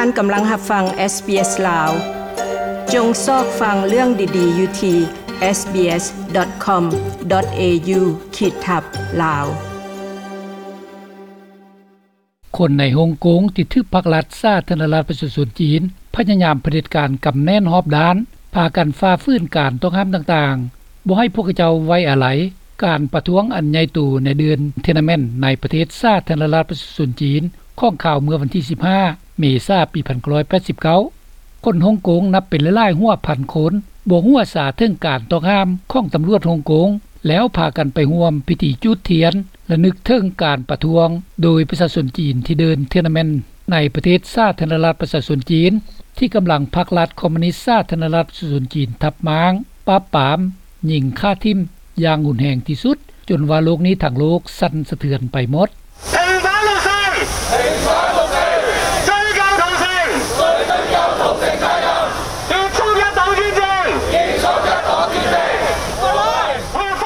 ທ່ານກຳລັງຮັບຟັງ SBS ລາວ. ຈົ່ງຊອກຟັງເລື່ອງດີໆຢູ່ທີ່ SBS.com.au ຂີດທັບ ລາວ. ຄົນໃນຮົງກົງທີ່ຖືກພັກລັດສາທາລະນະລັດປະຊາຊົນຈີນພະຍາຍາມຜະເດັດການກຳແໜ້ນຮອບດ້ານ ພາກັນຝ່າຝືນການຕ້ອງຫ້າມຕ່າງໆ, ບໍ່ໃຫ້ພວກເຂົາເຈົ້າໄວ້ອາໄລການປະທ້ວງອັນໃຫຍ່ໂຕໃນເດືອນ Tiananmen ໃນປະເທດສາທາລະນະລັດປະຊາຊົນຈີນ ຂອງຂ່າວເມື່ອວັນທີສິບຫ້າ ເມສາ ປີພັນເກົ້າຮ້ອຍແປດສິບເກົ້າ. ຄົນຮົງກົງນັບເປັນຫຼາຍໆຫົວພັນຄົນ ບໍ່ຮູ້ອາສາເຖິງການຕ້ອງຫ້າມຂອງຕຳຫຼວດຮົງກົງ ແລ້ວພາກັນໄປຮ່ວມພິທີຈູດທຽນ ລະນຶກເຖິງການປະທ້ວງໂດຍປະຊາຊົນຈີນທີ່ເດີນ Tiananmen ໃນປະເທດສາທາລະນະລັດປະຊາຊົນຈີນ ທີ່ກຳລັງພັກລັດຄອມມູນິດສາທາລະນະລັດປະຊາຊົນຈີນທັບມ້າງ ປາບປາມ, ຍິງຂ້າຖິ້ມຢ່າງຮຸນແຮງທີ່ສຸດ, ຈົນວ່າໂລກນີ້ທັງໂລກສັ່ນສະເທືອນໄປໝົດ.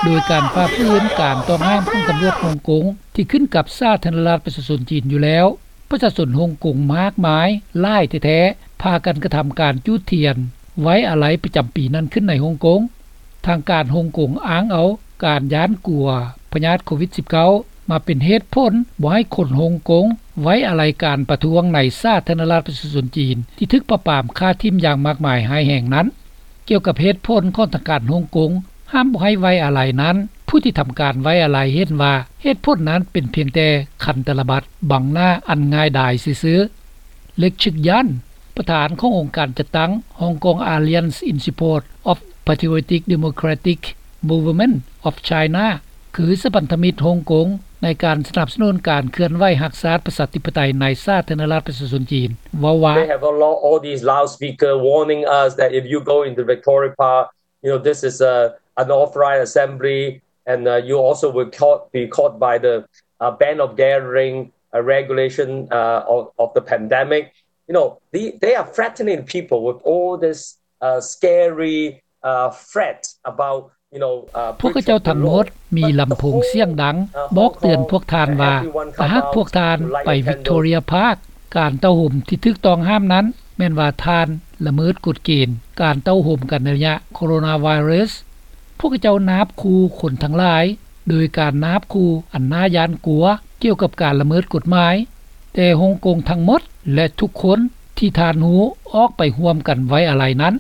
ໂດຍການຝ່າຝືນການຕ້ອງຫ້າມຂອງຕຳຫຼວດຮົງກົງທີ່ຂຶ້ນກັບສາທາລະນະລັດປະຊາຊົນຈີນຢູ່ແລ້ວ, ປະຊາຊົນຮົງກົງມາກມາຍຫຼາຍແທ້ໆ ພາກັນກະທຳການຈູດທຽນໄວ້ອາໄລປະຈຳປີນັ້ນຂຶ້ນໃນຮົງກົງ. ທາງການຮົງກົງອ້າງເອົາການຢ້ານກົວພະຍາດໂຄວິດສິບເກົ້າ ມາເປັນເຫດຜົນບໍ່ໃຫ້ຄົນຮົງກົງໄວ້ອາໄລການປະທ້ວງໃນສາທາລະນະລັດປະຊາຊົນຈີນ ທີ່ຖືກປາບປາມຂ້າຖິ້ມຢ່າງມາກມາຍຮ້າຍແຮງນັ້ນ. ກ່ຽວກັບເຫດຜົນຂອງທາງການຮົງກົງຫ້າມບໍ່ໃຫ້ໄວ້ອາໄລນັ້ນ, ຜູ້ທີ່ທຳການໄວ້ອາໄລເຫັນວ່າເຫດຜົນນັ້ນເປັນພຽງແຕ່ຄັນຕະລະບັດບັງໜ້າອັນງ່າຍດາຍຊື່ໆ. ເລັກຊຶກຢັນ ປະທານຂອງອົງການຈັດຕັ້ງ Hong Kong Alliance in Support of Patriotic Democratic Movement of China ຄືສະພັນທະມິດຮົງກົງໃນການສະໜັບສະໜູນການເຄື່ອນໄຫວຮັກຊາດປະຊາທິປະໄຕໃນສາທາລະນະລັດປະຊາຊົນຈີນ ເວົ້າວ່າ They have a lot, all these loudspeaker warning us that if you go into Victoria Park, you know, this is a unauthorized assembly, and, uh, you also will caught, be caught by the, uh, ban of gathering, uh, regulation, uh, of, of the pandemic. You know, the, they are threatening people with all this, uh, scary, uh, threat about, you know, uh, ພວກເຂົາເຈົ້າທັງໝົດມີລຳໂພງສຽງດັງບອກເຕືອນພວກທ່ານວ່າ ຖ້າຫາກພວກທ່ານໄປວິກຕໍເຣຍພາກ ການເຕົ້າໂຮມທີ່ຖືກຕ້ອງຫ້າມນັ້ນ ແມ່ນວ່າທ່ານລະເມີດກົດເກນການເຕົ້າໂຮມກັນໃນໄລຍະໂຄໂຣນາໄວຣັສ. ພວກເຂົາເຈົ້ານາບຂູ່ຄົນທັງຫຼາຍ ໂດຍການນາບຂູ່ອັນໜ້າຢ້ານກົວກ່ຽວກັບການລະເມີດກົດໝາຍ, ແຕ່ຮົງກົງທັງໝົດ ແລະ ທຸກຄົນທີ່ທ່ານຮູ້ອອກໄປຮ່ວມກັນໄວ້ອາໄລນັ້ນ.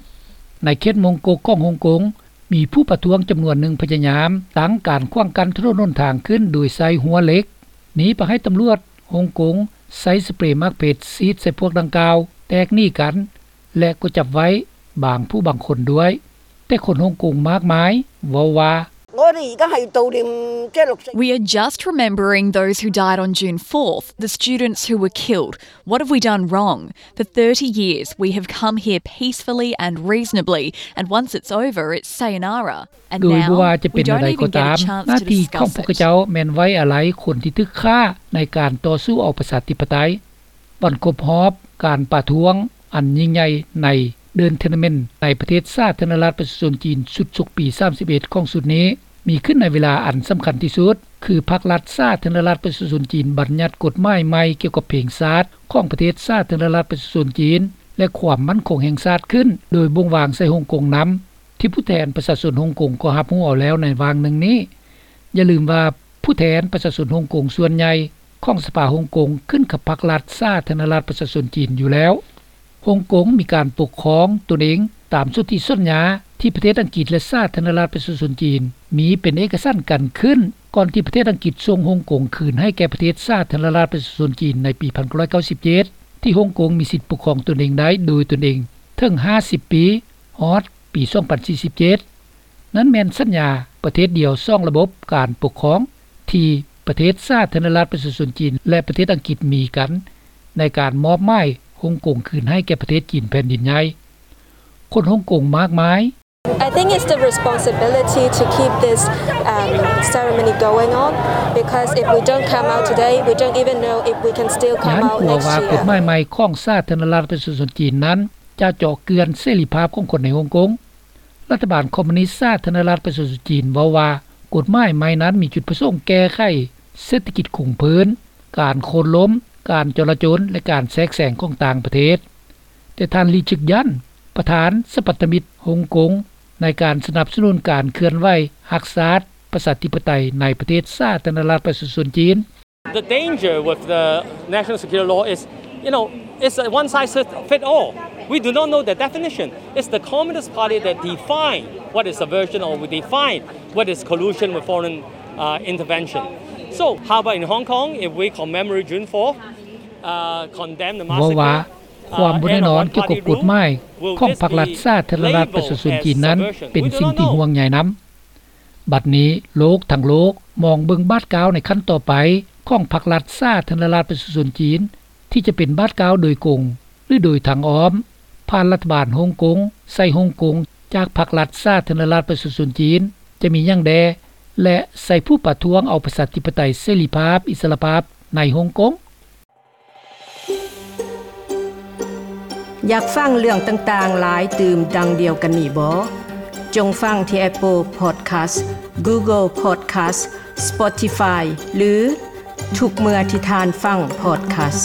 ໃນເຂດມົງກົກຂອງຮົງກົງ ມີຜູ້ປະທ້ວງຈຳນວນໜຶ່ງພະຍາຍາມຕັ້ງການຂວາງກັ້ນຖະໜົນຫົນທາງຂຶ້ນໂດຍໃຊ້ຮົ້ວເຫຼັກ. ນີ້ພາໃຫ້ຕຳຫຼວດຮົງກົງໃຊ້ສະເປຣໝາກເພັດສີດໃສ່ພວກດັ່ງກ່າວ, ແຕກໜີກັນ ແລະ ກໍຈັບໄວ້ບາງຜູ້ບາງຄົນດ້ວຍ. ແຕ່ຄົນຮົງກົງມາກມາຍເວົ້າວ່າ We are just remembering those who died on June fourth, the students who were killed. What have we done wrong? For thirty years, we have come here peacefully and reasonably, and once it's over, it's sayonara. ໂດຍບໍ່ວ່າຈະເປັນແນວໃດກໍຕາມ, ໜ້າທີ່ຂອງພວກເຂົາເຈົ້າແມ່ນໄວ້ອາໄລຄົນທີ່ຖືກຂ້າໃນການຕໍ່ສູ້ເອົາປະຊາທິປະໄຕ. ວັນຄົບຮອບການປະທ້ວງອັນຍິ່ງໃຫຍ່ໃນເດີນ Tiananmen ໃນປະເທດສາທາລະນະລັດປະຊາຊົນຈີນ ຊຸດສົກປີສາມສິບເອັດຂອງຊຸດນີ້ ມີຂຶ້ນໃນເວລາອັນສຳຄັນທີ່ສຸດ ຄືພັກລັດສາທາລະນະລັດປະຊາຊົນຈີນບັນຍັດກົດໝາຍໃໝ່ກ່ຽວກັບເພງຊາດຂອງປະເທດສາທາລະນະລັດປະຊາຊົນຈີນ ແລະ ຄວາມໝັ້ນຄົງແຫ່ງຊາດຂຶ້ນ ໂດຍບົ່ງວາງໃສ່ຮົງກົງນຳ ທີ່ຜູ້ແທນປະຊາຊົນຮົງກົງກໍຮັບຮູ້ເອົາແລ້ວໃນຫວ່າງໜຶ່ງນີ້. ຢ່າລືມວ່າຜູ້ແທນປະຊາຊົນຮົງກົງສ່ວນໃຫຍ່ຂອງສະພາຮົງກົງຂຶ້ນກັບພັກລັດສາທາລະນະລັດປະຊາຊົນຈີນຢູ່ແລ້ວ. ຮົງກົງມີການປົກຄອງຕົນເອງຕາມສົນທິສັນຍາທີ່ປະເທດອັງກິດ ແລະ ສາທາລະນະລັດປະຊາຊົນຈີນມີເປັນເອກະສັນກັນຂຶ້ນ ກ່ອນທີ່ປະເທດອັງກິດສົ່ງຮົງກົງຄືນໃຫ້ແກ່ປະເທດສາທາລະນະລັດປະຊາຊົນຈີນໃນປີພັນເກົ້າຮ້ອຍເກົ້າສິບເຈັດ ທີ່ຮົງກົງມີສິດປົກຄອງຕົນເອງໄດ້ໂດຍຕົນເອງເຖິງຫ້າສິບປີ ຮອດປີສອງພັນສີ່ສິບເຈັດ. ນັ້ນແມ່ນສັນຍາປະເທດດຽວສອງລະບົບການປົກຄອງທີ່ປະເທດສາທາລະນະລັດປະຊາຊົນຈີນ ແລະ ປະເທດອັງກິດມີກັນ ໃນການມອບໝາຍຮົງກົງຄືນໃຫ້ແກ່ປະເທດຈີນແຜ່ນດິນໃຫຍ່. ຄົນຮົງກົງມາກມາຍ I think it's the responsibility to keep this, um, ceremony going on, because if we don't come out today, we don't even know if we can still come out next year. ຢ້ານກົວວ່າກົດໝາຍໃໝ່ຂອງສາທາລະນະລັດປະຊາຊົນຈີນນັ້ນຈະເຈາະເຈື່ອນເສລີພາບຂອງຄົນໃນຮົງກົງ. ລັດຖະບານຄອມມູນິດສາທາລະນະລັດປະຊາຊົນຈີນເວົ້າວ່າ ກົດໝາຍໃໝ່ນັ້ນມີຈຸດປະສົງແກ້ໄຂເສດຖະກິດຄົງເພີ້ນ, ການໂຄ່ນລົ້ມ ການຈໍລະຈົນ ແລະ ການແຊກແຊງຂອງຕ່າງປະເທດ. ແຕ່ທ່ານ ລີ ຈຶກຢັນ ປະທານສະພັນທະມິດຮົງກົງ ໃນການສະໜັບສະໜູນການເຄື່ອນໄຫວຮັກຊາດ ປະຊາທິປະໄຕ ໃນປະເທດສາທາລະນະລັດປະຊາຊົນຈີນ. The danger with the national security law is, you know, it's a one size fit all. We do not know the definition. It's the Communist Party that define what is subversion or we define what is collusion with foreign uh, intervention. So, how about in Hong Kong, if we commemorate June fourth, uh, condemn the massacre, ເວົ້າວ່າ ຄວາມບໍ່ແນ່ນອນກ່ຽວກັບກົດໝາຍຂອງພັກລັດສາທາລະນະລັດປະຊາຊົນຈີນນັ້ນ ເປັນສິ່ງທີ່ຫ່ວງໃຍນຳ. ບັດນີ້ໂລກທັງໂລກມອງເບິ່ງບາດກ້າວໃນຂັ້ນຕໍ່ໄປຂອງພັກລັດສາທາລະນະລັດປະຊາຊົນຈີນ ທີ່ຈະເປັນບາດກ້າວໂດຍກົງ ຫຼື ໂດຍທາງອ້ອມ ຜ່ານລັດຖະບານຮົງກົງ ໃສ່ຮົງກົງ ຈາກພັກລັດສາທາລະນະລັດປະຊາຊົນຈີນ ຈະມີຫຍັງແດ່ ແລະ ໃສ່ຜູ້ປະທ້ວງເອົາປະຊາທິປະໄຕ ເສລີພາບ ອິດສະຫຼະພາບໃນຮົງກົງ. ຢາກຟັງເລື່ອງຕ່າງໆຫຼາຍຕື່ມດັ່ງດຽວກັນນີ້ບໍ? ຈົ່ງຟັງທີ່ Apple Podcast, Google Podcast, Spotify ຫຼື ທຸກເມື່ອທີ່ທ່ານຟັງ podcast.